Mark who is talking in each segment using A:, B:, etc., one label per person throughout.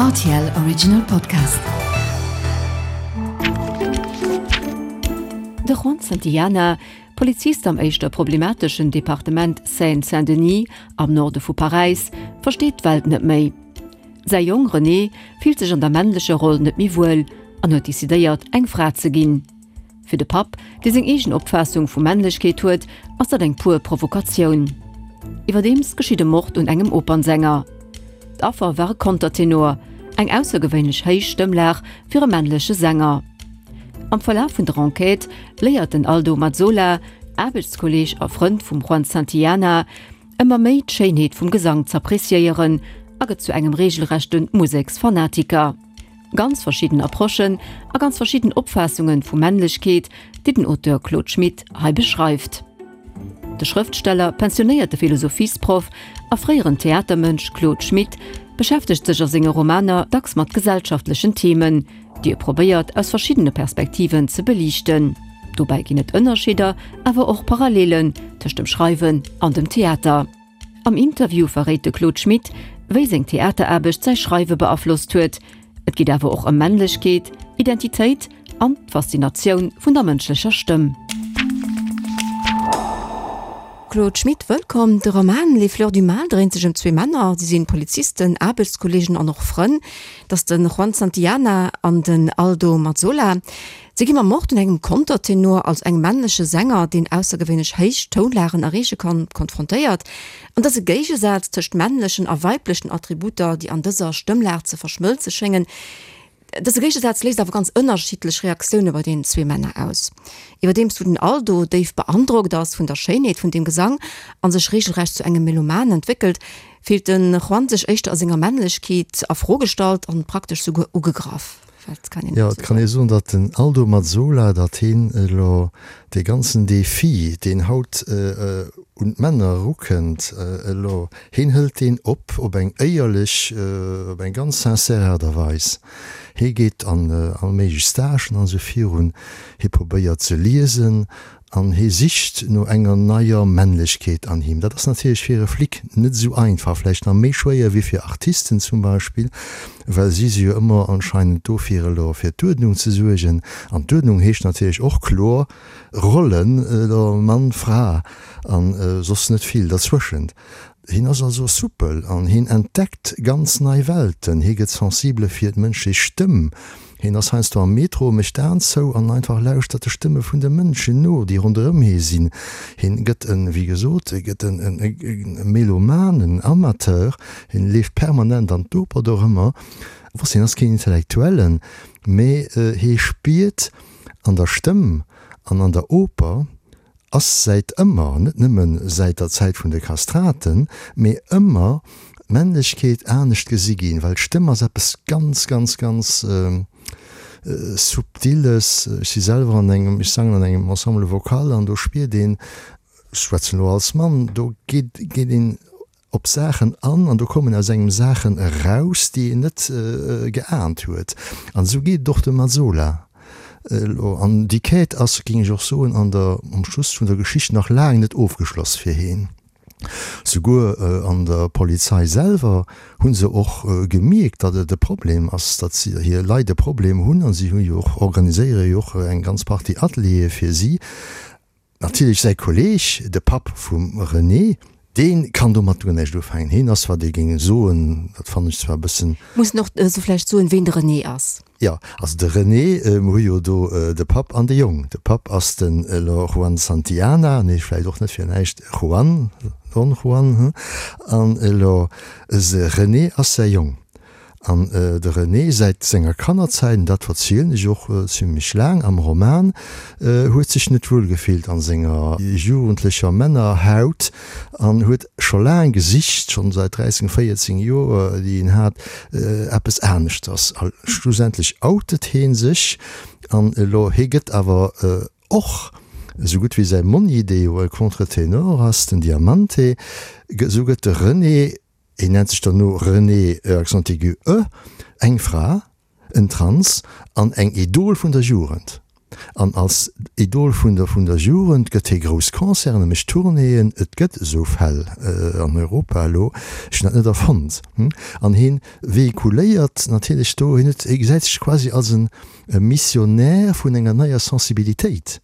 A: Rtl Original Podcast. De Juan Santillana, Polizist am éischter problemateschen Departement Seine-Saint-Denis am Norde vu Paräis, versteet d'Welt net méi. Säi Jong René fillt sech an der männlecher Roll net méi wuel an huet decidéiert, eng Fra ze ginn. Fir de Papp, dee seng eegen Opfaassung vu Männlechkeet huet, ass dat eng puer Provokatioun. Iwwerdeems geschitt e Mord un engem Opernsänger. D'Affer war e Kontertenor, eng aussergewéinlech héich Stëmmlag fir e männleche Sänger. Am Verlaf vun der Enquête léiert den Aldo Mazzola, Aarbechtskolleeg a Frënd vum Juan Santillana, ëmmer méi d'Schéinheet vum Gesang z'appreciéieren a gëtt zu engem reegelrechte Museksfanatiker. Ganz verschidden Approchen a ganz verschidden Opfaassungen vu Männlechkeet, déi den Auteur Claude Schmit hei beschreift. De Schrëftsteller, pensionéierte Philosophiesproff a fréieren Theatermënsch Claude Schmit beschäftegt sech a senge Romaner dacks mat gesellschaftlechen Themen, déi e probéiert aus verschiddene Perspektiven ze beliichten. Dobäi ginn et Ënnerscheeder, awer och Parallelen tëscht dem Schreiwen an dem Theater. Am Interview verréit de Claude Schmit, wéi seng Theateraarbecht säi Schreiwe beaflosst huet. Et geet awer och ëm Männlechkeet, Identitéit an d'Faszinatioun vun der mënschlecher Stëmm.
B: Claude Schmit, Wëllkomm. De Roman Les fleurs du mal dréint sech ëm zwee Männer. Si sinn Polizisten, Aarbechtskolleegen an och Frënn. Dat ass de Juan Santillana an den Aldo Mazzola. Si gi mam Mord un engem Kontertenor, also engem männleche Sänger, deen aussergewéinlech héich Tounlagen erreeche kann, konfrontéiert. An dëse Géigesaz tëscht männlechen a weiblechen Attributer, déi an dëser Stëmmlag ze verschmëlze schéngen, dëse Géigesaz léist awer ganz ënnerschiddlech Reaktioune bei deenen zwee Männer aus. Iwwerdeems wou den Aldo déif beandrockt ass vun der Schéinheet vun deem Gesang a sech reegelrecht zu engem Meloman entwéckelt, fillt de Juan sech éischter a senger Männlechkeet a Fro gestallt an praktesch souguer ugegraff.
C: Jo, et kann ee soen, datt den Aldo Mazzola, datt hien elo dee ganzen Defi, deen haut un d'Männer erukënnt, elo, hien hëlt deen op, op eng éierlech, op eng ganz sincère Aart a Weis. Hie geet an all méiglech Stagen an esou virun, hie probéiert ze liesen An hie sicht no enger neier Männlechkeet an him. Dat ass natierlech fir e Flic net esou einfach, vläicht nach méi schwéier wéi fir Artisten zum Beispill, well si si jo ëmmer anscheinend do fir elo fir d'Uerdnung ze suergen. An d'Uerdnung heescht natierlech och kloer Rollen, elo Mann, Fra a soss net vill derzwëschent. Hien ass also soupel an hien entdeckt ganz nei Welten. Hie gëtt sensibele fir d'mënschlech Stëmm. Hien ass heiansdo am Metro, mécht d'Aen zou an einfach lauschtert de Stëmme vun de Mënschen no, déi ronderëm hie sinn. Hien gëtt en, wéi gesot, e gëtt en Meloman, en Amateur. Hien leeft permanent an d'Oper dorëmmer. Wosst, hien ass keen Intellektuellen, mee hie spiert an der Stëmm an an der Oper, ass säit ëmmer, net nëmme säit der Zäit vun de Kastraten, mee ëmmer d'Männlechkeet anescht gesi ginn, well d'Stëmm ass eppes ganz, ganz, ganz Subtiles. Ech si selwer an engem, ech sangen an engem Ensemble vocal an do spiert een, ech schwätzen elo als Mann, do geet, geet een op Saachen an an do kommen aus engem Saachen eraus, déi een net geahnt huet. An esou geet et och dem Mazzola elo. An déi Quête ass, géing ech och soen, an der, am Schluss vun der Geschicht nach laang net ofgeschloss fir heen. Souguer an der Polizei selwer hu se och gemierkt, datt et e Problem ass, datt si hir Leit e Problem hunn a si hu jo och, organiséiere jo och eng ganz Partie Ateliere fir si. Natierlech säi Kolleeg, de Papp vum René, dee kann domat guer näischt ufänken. Hien ass, wat ee géing soen, dat fannen ech zwar e bëssen.
B: Mussen och esou vläicht soen, ween de René ass.
C: Jo, also de René, mer hu jo do de Papp an de Jong. De Papp ass den elo Juan Santillana, nee, vläicht och net fir näischt Juan, Don Juan, hm, an elo se René ass säi Jong. An de René säit senger Kannerzäit, an dat verzielen ech och zimlech laang am Roman, huet sech net wuel gefillt an senger jugendlecher Männerhaut an huet scho laang gesicht, schonn säit 13, 14 Joer, déi en hat, eppes aneschters. A schlussendlech outet hee sech an elo, hee gëtt awer och, esou gutt wéi säi Monni, dee jo e Contre-Ténor ass, den Diamante, esou gëtt de René, Hien nennt sech dann no René, e accent aigu e, eng Fra, en Trans an eng Idol vun der Jugend. An als Idol vun der vun der Jugend gëtt hie grouss Concerten, e mécht Tournéeën, et gëtt esou Fäll an Europa elo, ech hunn dat net erfonnt. An hien véhiculéiert natierlech do, hien huet, hie gesäit sech quasi als e Missionnaire vun enger neier Sensibilitéit.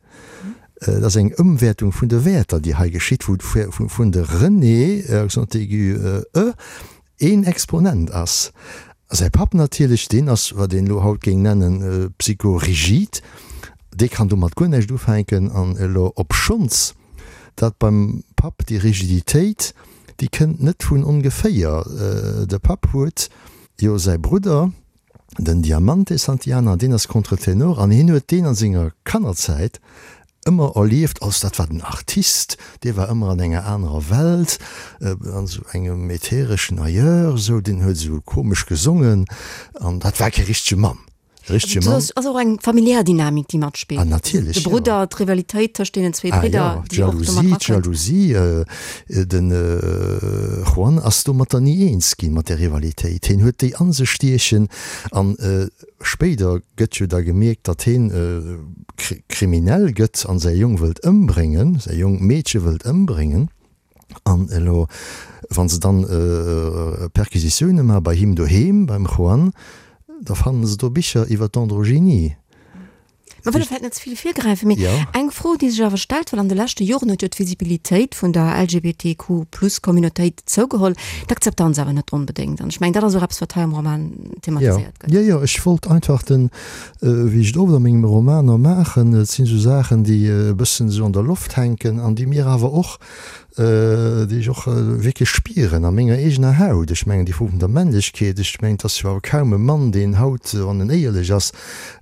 C: Et ass eng Ëmwäertung vun de Wäerter, déi hei geschitt, wou vun de René, accent aigu, e, een Exponent ass. A säi Papp natierlech, deen ass, wat een elo haut géing nennen, psychorigid, dee kann domat guer näischt ufänken. An elo, obschonns dat beim Papp déi Rigiditéit, déi kënnt net vun ongeféier, de Papp huet jo säi Brudder, den Diamante Santillana, deen ass Contre-Ténor an hien huet deen a senger Kannerzäit ëmmer erlieft als, dat war den Artist, dee war ëmmer an enger anerer Welt, an esou engem äthereschen Ailleurs, esou, deen huet esou komesch gesongen an dat war kee richtege Mann. E richtege Mann.
B: Et ass och eng familiär Dynamik, déi matspillt.
C: Ah, natierlech,
B: jo. De Brudder, d'Rivalitéit tëscht deenen zwee Bridder,
C: déi och do mat erakënnt. Ah jo, d'Jalousie, d'Jalousie, den Juan ass domatter ni eens ginn, mat där Rivalitéit. Hien huet déi a sech stiechen an Spéider gëtt jo da gemierkt, datt heen kriminell gëtt an säi Jong wëllt ëmbréngen, säi Jong Meedche wëllt ëmbréngen. An elo, wa se dann Perquisitioune maache bei him doheem, beim Juan, da fannen se do Bicher iwwer d'Androgynie.
B: Mer wëlle vläicht net ze vill virgräifen, mee eng Fro, déi sech awer stellt, well an de leschte Joren huet jo d'Visibilitéit vun der LGBTQ-Plus-Communautéit zougeholl, d'Akzeptanz awer net onbedéngt. An ech mengen, dat ass och eppes, wat hei am Roman thematiséiert
C: gëtt. Jo, jo, ech wollt einfach den, wéi ech et oft a mengem Romaner maachen, et sinn esou Saachen, déi e bëssen esou an der Loft hänken an déi mir awer och déi ech och wierklech spieren a menger eegener Haut. Ech mengen, déi Fro vun der Männlechkeet, ech mengen, et ass jo awer kaum e Mann, deen haut, wann en éierlech ass,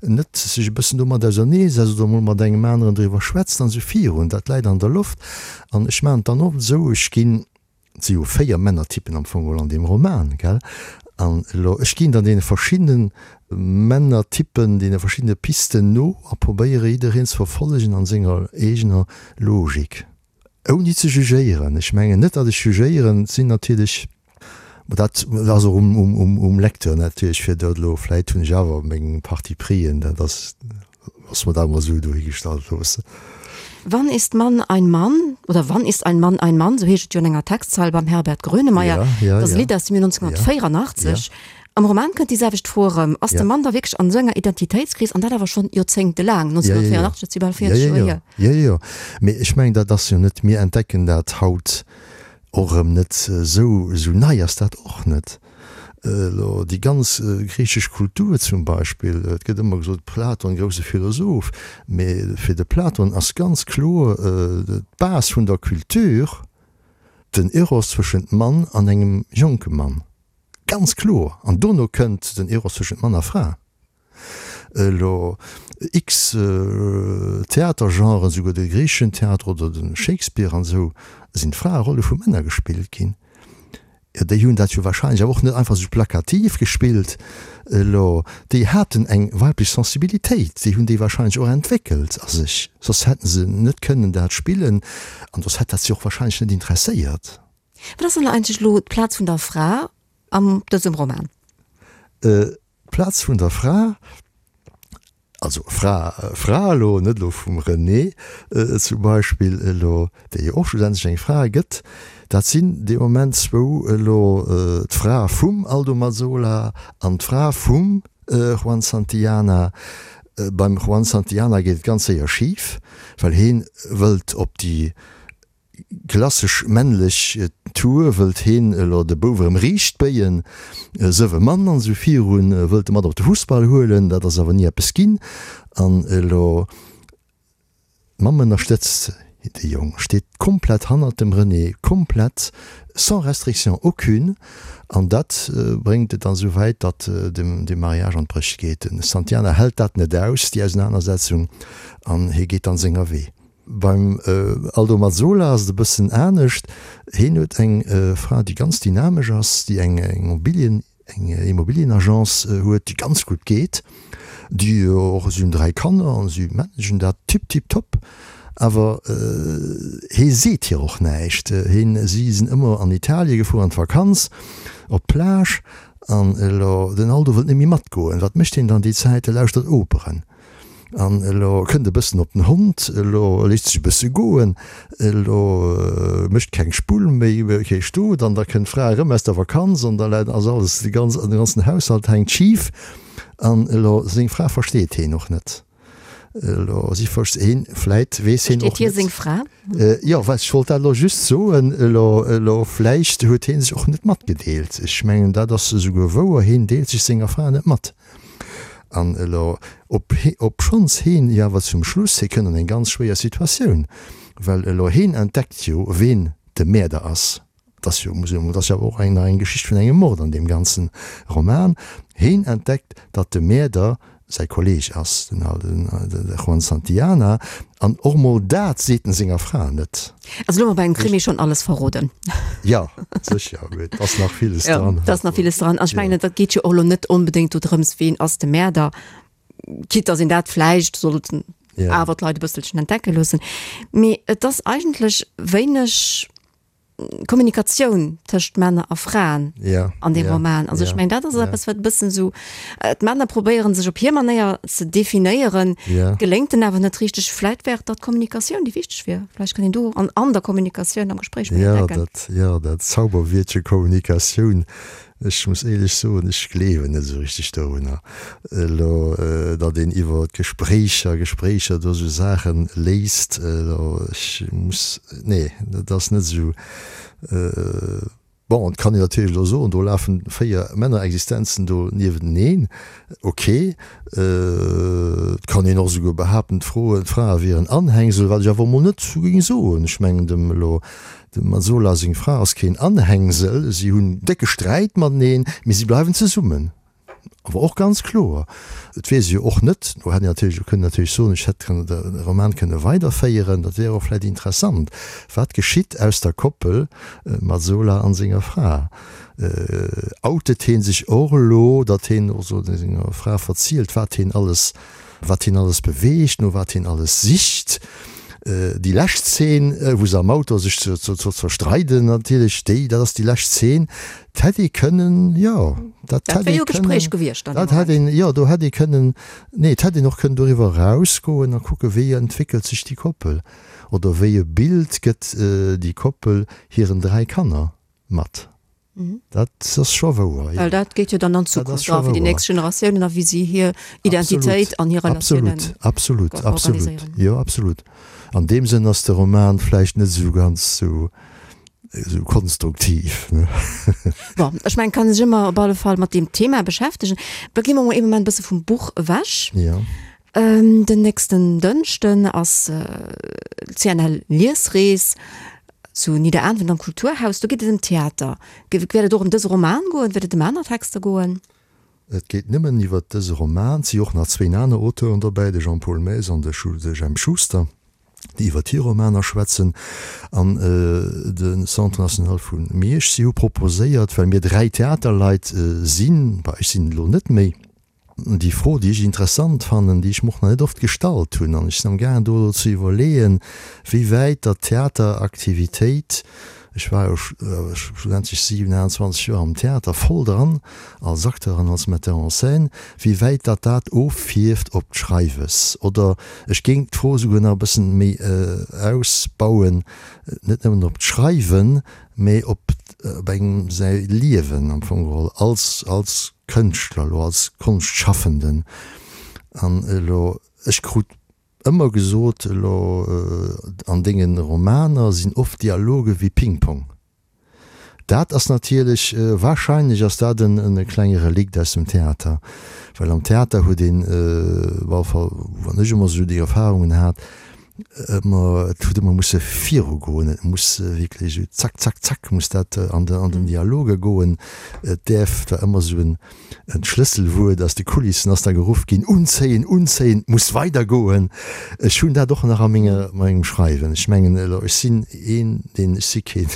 C: net sech e bëssen domat auserneesetzt oder emol mat engem aneren driwwer schwätzt an esou virun. Dat läit an der Loft. An ech maachen et dann oft esou, ech ginn, et si jo 4 Männertypen am Fong geholl an deem Roman, gell, an elo, ech ginn dann deene verschiddene Männertypen, deene verschiddene Pisten no a probéiere jiddereen ze verfollegen an senger eegener Logik. Ouni ze jugéieren, ech mengen net, datt ech jugéieren, et sinn natierlech, ma dat ass och um Lecteur natierlech, fir dat elo, vläit hunn ech awer meng Parti-prisen, dat ass, loosse mer dat emol esou dohigestallt loossen.
B: Wann ist Mann ein Mann? Oder Wann ist ein Mann ein Mann? Sou heescht et jo an enger Textzeil beim Herbert Grönemeyer. Dat ass e Lidd aus dem Joer 1984. Am Roman kënnt déi selwecht Fro erëm, Ass de Mann da wierklech an esou enger Identitéitskris, an dat awer schonn joerzéngtelaang, 1984, dat si bal 40 Joer
C: hier? Jo, jo, mee ech mengen, dat ass jo net, mir entdecken dat haut och erëm net, esou, esou nei ass dat och net. Elo déi ganz griichesch Kultur zum Beispill, et gëtt ëmmer gesot, Platon, grousse Philosoph, mee fir de Platon ass ganz kloer d'Base vun der Kultur den Eros zwëschent Mann an engem jonke Mann. Ganz kloer! An dono kënnt den Eros tëschent Mann a Fra. Elo x Theatergenren, souguer de griicheschen Theater oder de Shakespeare an esou, sinn d'Fraerolle vu Männer gespillt ginn. Jo, déi hunn dat jo wahrscheinlech awer och net einfach esou plakativ gespillt. Elo, déi haten eng weiblech Sensibilitéit, déi hunn déi wahrscheinlech och entwéckelt a sech, soss hätte se net kënnen dat spillen an soss hätt dat si och wahrscheinlech net interesséiert.
B: Wat ass dann eigentlech elo d'Plaz vun der Fra an dësem Roman?
C: D'Plaz vun der Fra, also Fra, Fra elo, net elo vum Renée zum Beispill elo, déi jo och schlussendlech eng Fra gëtt, dat sinn dee Moment zwou elo, d'Fra vum Aldo Mazzola an d'Fra vum Juan Santillana. Beim Juan Santillana geet et ganz séier schif, well hee wëllt op déi Klassesch männlech Tour, wëllt heen elo de Bouf erëm riicht béien, sëwe Mann an esou virun, wëllt e mat op de Fussball huelen, dat ass awer ni eppes ginn. An elo d'Mamm ënnerstëtzt de Jong, steet komplett hannert dem René, komplett, sans restriction aucune, an dat bréngt et dann esou wäit, datt de Mariage an d'Bréch geet. De Santiana hält dat net aus, déi Ausenanersetzung, an hie geet dann senger Wee. Beim Aldo Mazzola ass et e bëssen anescht. Hien huet eng Fra, déi ganz dynamesch ass, déi eng Immobilien, eng Immobilienagence huet, déi ganz gutt geet, déi och, si hunn 3 Kanner an si managen dat tip tip top. Awer hie seet hir och näischt. Hien, si sinn ëmmer an Italie gefuer an d'Vakanz, op d'Plage an elo den Aldo wëllt net méi matgoen. Wat mécht hien dann déi Zäit? E lauschtert Operen. An elo kënnt e bëssen op den Hond, elo léisst sech e bësse goen, elo mécht keng Spull méi, kee Stot, an da kënnt d'Fra erëm aus der Vakanz an da läit, ass alles, de ganz, de ganzen Haushalt hänkt schif. An elo seng Fra versteet heen och net. Elo si verst, heen, vläit weess heen och
B: net. Versteet hie seng Fra?
C: Jo, well ech wollt dat elo just soen, elo, elo vläicht huet hee sech och net matgedeelt. Ech mengen, dat ass esouguer wouer, heen deelt sech senger Fra net mat. An elo, ob, obschonns heen jo awer zum Schluss, hie kënnt an eng ganz schwéier Situatioun, well elo heen entdeckt jo, ween de Mäerder ass. Et ass jo, muss een, et ass jo awer och eng, nach eng Geschicht vun engem Mord an deem ganzen Roman. Heen entdeckt, datt de Mäerder säi Kolleg ass, den, de Juan Santillana. An och mol dat seet en senger Fra net.
B: Also elo hu mer bei engem Krimi schonn alles verroden.
C: Jo, sécher, mee et ass nach villes dran.
B: Jo, et ass nach villes dran. An ech mengen, et geet jo och elo net onbedéngt do drëms, ween ass de Mäerder, quitte dass een dat vläicht sollt awer d'Leit e bësselchen entdecke loossen. Mee et ass eigentlech wéineg Kommunikatioun tëscht Männer a Fraen
C: ja,
B: an dem
C: ja,
B: Roman. Also
C: ja,
B: ech mengen dat ass
C: ja.
B: eppes wat e bëssen sou äh, d'Männer probéieren sech op hir Manéier ze definéieren,
C: ja.
B: geléngt den awer net richteg. Vläit wär et da d'Kommunikatioun déi wichteg wier. Vläicht kann een do an an der Kommunikatioun am Gespréich méi
C: Ja,
B: entdecken.
C: dat, ja, dat Zauberwiertche Kommunikatioun Ech muss éierlech soen, ech gleewen net esou richteg dorunner elo, datt een iwwer Gespréicher, Gespréicher do esou Saache léist. Elo, ech muss, nee, dat ass net esou. Bon, et kann een natierlech elo soen, do lafen 4 Männerexistenzen do niewenteneen. Ok. Et kann een och esouguer behaapten, d'Froen, d'Frae wieren Anhängsel, wat ech awer emol net géing soen. Ech mengen, dem elo Dem Mazzola seng Fra ass keen Anhängsel, si hunn décke Sträit mateneen, mee si bleiwen zesummen. Awer och ganz kloer, et weess ee jo och net, do hätt een natierlech och kënnen natierlech soen, ech hätt kënnen de Roman kënne weiderféieren, dat wär och vläicht interessant, wat geschitt aus der Koppel Mazzola an senger Fra? Outet hee sech och elo, datt heen och senger Fra verzielt, wat heen alles Wat hien alles beweegt, no wat hien alles sicht. Déi lescht Zeen, wou se am Auto sech zerstreiden natierlech, déi, dat ass déi lescht Zeen, dat hätt ee kënnen, jo, dat hätt ee kënnen, dat hätt een, jo, do hätt ee kënnen, nee, et hätt een och kënnen doriwwer erausgoen a kucken, wéi entwéckelt sech déi Koppel oder wéi e Bild gëtt déi Koppel hiren 3 Kanner mat. Dat ass scho wouer, jo.
B: Well dat geet jo dann an d'Zukunft a fir déi nächst Generatiounen a wéi si hir Identitéit an hir Relatiounen
C: Absolut, absolut, absolut, jo, absolut. An deem Sënn ass de Roman vläicht net esou ganz esou esou konstruktiv, ne?
B: Bon, ech mengen, kann sech ëmmer op alle Fall mat deem Thema beschäftegen. Da gi mer mol ee Moment e bësse vum Buch ewech.
C: Jo.
B: Den nächsten Dënschden ass d'CNL Liesrees zu Nidderaanwen am Kulturhaus. Do geet et ëm Theater. Wäert et och ëm dëse Roman goen? Wäert et ëm aner Texter goen?
C: Et geet nëmmen iwwer dëse Roman. Et si och nach zwéin aner Auteuren dobäi, de Jean-Paul Maes an de Jemp Schuster, déi iwwer hir Romaner schwätzen. An de Centre National vu Miersch, si hu proposéiert, well mir 3 Theaterleit sinn, bah, ech sinn et elo net méi, Déi Fro, déi ech interessant fannen, déi ech mer och nach net oft gestallt hunn, an ech sinn am gaangen do elo ze iwwerleeën, wéi wäit datt d'Theateraktivitéit, ech war jo schlussendlech 27 Joer am Theater voll dran, als Acteur an als Metteur en scène, wéi wäit datt dat offierft op d'Schreiwes. Oder ech géing d'Fro esouguer nach e bëssen méi ausbauen, net nëmmen op d'Schreiwen, mä op engem säi Liewen am Fong geholl als, als Kënschtler, elo als Konschtschafenden. An elo, ech krut ëmmer gesot, elo an denge Romaner sinn oft Dialoge wéi Ping-Pong. Dat ass natierlech, wahrscheinlech ass dat e klenge Relikt aus dem Theater, well am Theater huet een, op alle Fall wann ech ëmmer esou déi Erfahrungen hat, ëmmer, et huet ëmmer musse virugoen, et muss wierklech esou zack, zack, zack muss dat an de, an den Dialoge goen. Et däerf, et war ëmmer esou en, en Schlësselwuert aus de Kulissen ass da geruff ginn, Unzéien, unzéien, et muss weidergoen. Ech hunn dat och nach a menger, mengem Schreiwen. Ech mengen elo, ech sinn een, deen, ech si keen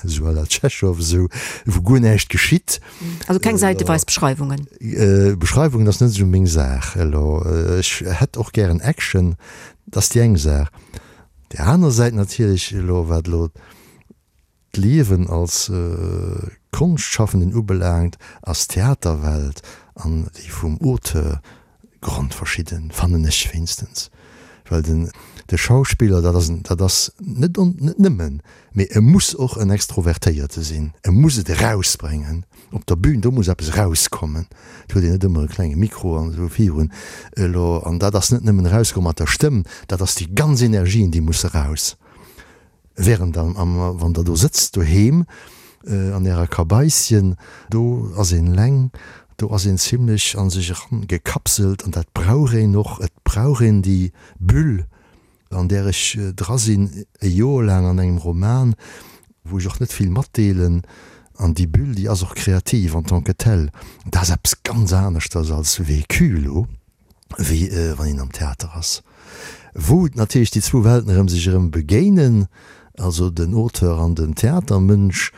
C: esou à la Tschechow, esou wou guer näischt geschitt.
B: Also keng säiteweis Beschreiwungen?
C: Beschreiwungen ass net esou meng Saach elo. Ech hätt och gären Action, dat ass déi eng Saach. Déi aner Säit natierlech elo, wat elo d'Liewen als Konschtschaffenden ubelaangt, ass d'Theaterwelt an déi vum Auteur. Grondverschidden, fannen ech wéinstens, well den de Schauspiller, dat ass en, dat ass net on, net nëmmen, mee e muss och en Extrovertéierte sinn, e muss et erausbréngen op der Bühn, do muss eppes erauskommen, et huet een net ëmmer e klenge Mikro an esou virun elo, an dat ass net nëmmen erauskomm mat der Stëmm, dat ass déi ganz Energien, déi musse raus. Während am, am, wann der do sëtzt doheem an ärer Kabaisschen, do ass een eleng, do ass een zimlech a sech eran gekapselt an dat brauch een och. Et brauch een déi Bulle, an där ech dra sinn, e Joer laang an engem Roman, wou ech och net vill matdeelen. An déi Bulle, déi ass och kreativ en tant que telle. Dat ass eppes ganz aneschters als Vécu elo. wéi wann een am Theater ass, wou natierlech déi zwou Welten erëm sech erëm begéinen, also den Auteur an den Theatermënsch.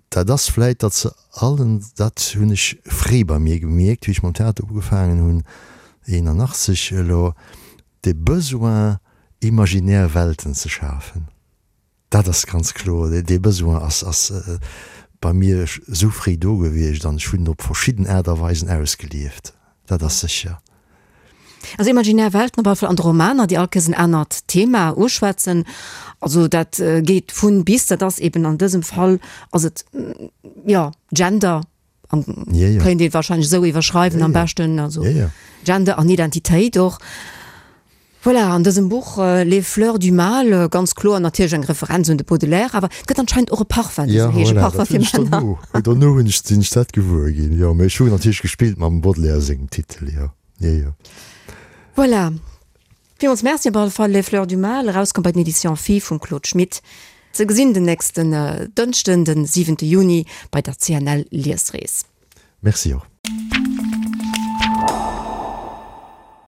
C: Dat ass vläit, datt se allen, dat hunn ech fréi bei mir gemierkt, wéi ech mam Theater ugefaangen hunn, 81 elo, de Besoin imaginär Welten ze schafen. Dat ass ganz kloer. Dee Besoin ass ass bei mir esou fréi do gewiescht an ech hunn en op verschidden Aart a Weisen ausgelieft. Dat ass sécher.
B: Also imaginär Welten op alle Fall an de Romaner, déi all Kéiers en anert Thema uschwätzen. Also dat geet vun bis, dat ass eben an dësem Fall ass et, jo, Gender, An
C: ja, ja.
B: kéint ee wahrscheinlech esou iwwerschreiwen
C: ja,
B: am
C: ja.
B: beschten, also
C: ja, ja.
B: Gender an Identitéit och. Voilà, an dësem Buch Les fleurs du mal, äh, ganz kloer natierlech eng Referenz un de Baudelaire, awer et gëtt anscheinend och e Parfum, dee
C: Ja,
B: sou heescht, e
C: voilà,
B: Parfum
C: dat
B: fir
C: hunn ech
B: Männer.
C: dono, dono hunn ech, sinn ech dat gewuer ginn, jo. Mee ech hunn natierlech gespillt mam Baudelaire sengem Titel, jo, jo, jo.
B: Voilà. Villmools Merci op alle Fall. Les fleurs du mal, erauskomm bei den Editions Phi vum Claude Schmit. Ze gesinn den nächsten Dënschden, den 7 Juni bei der CNL Liesrees.
C: Merci och.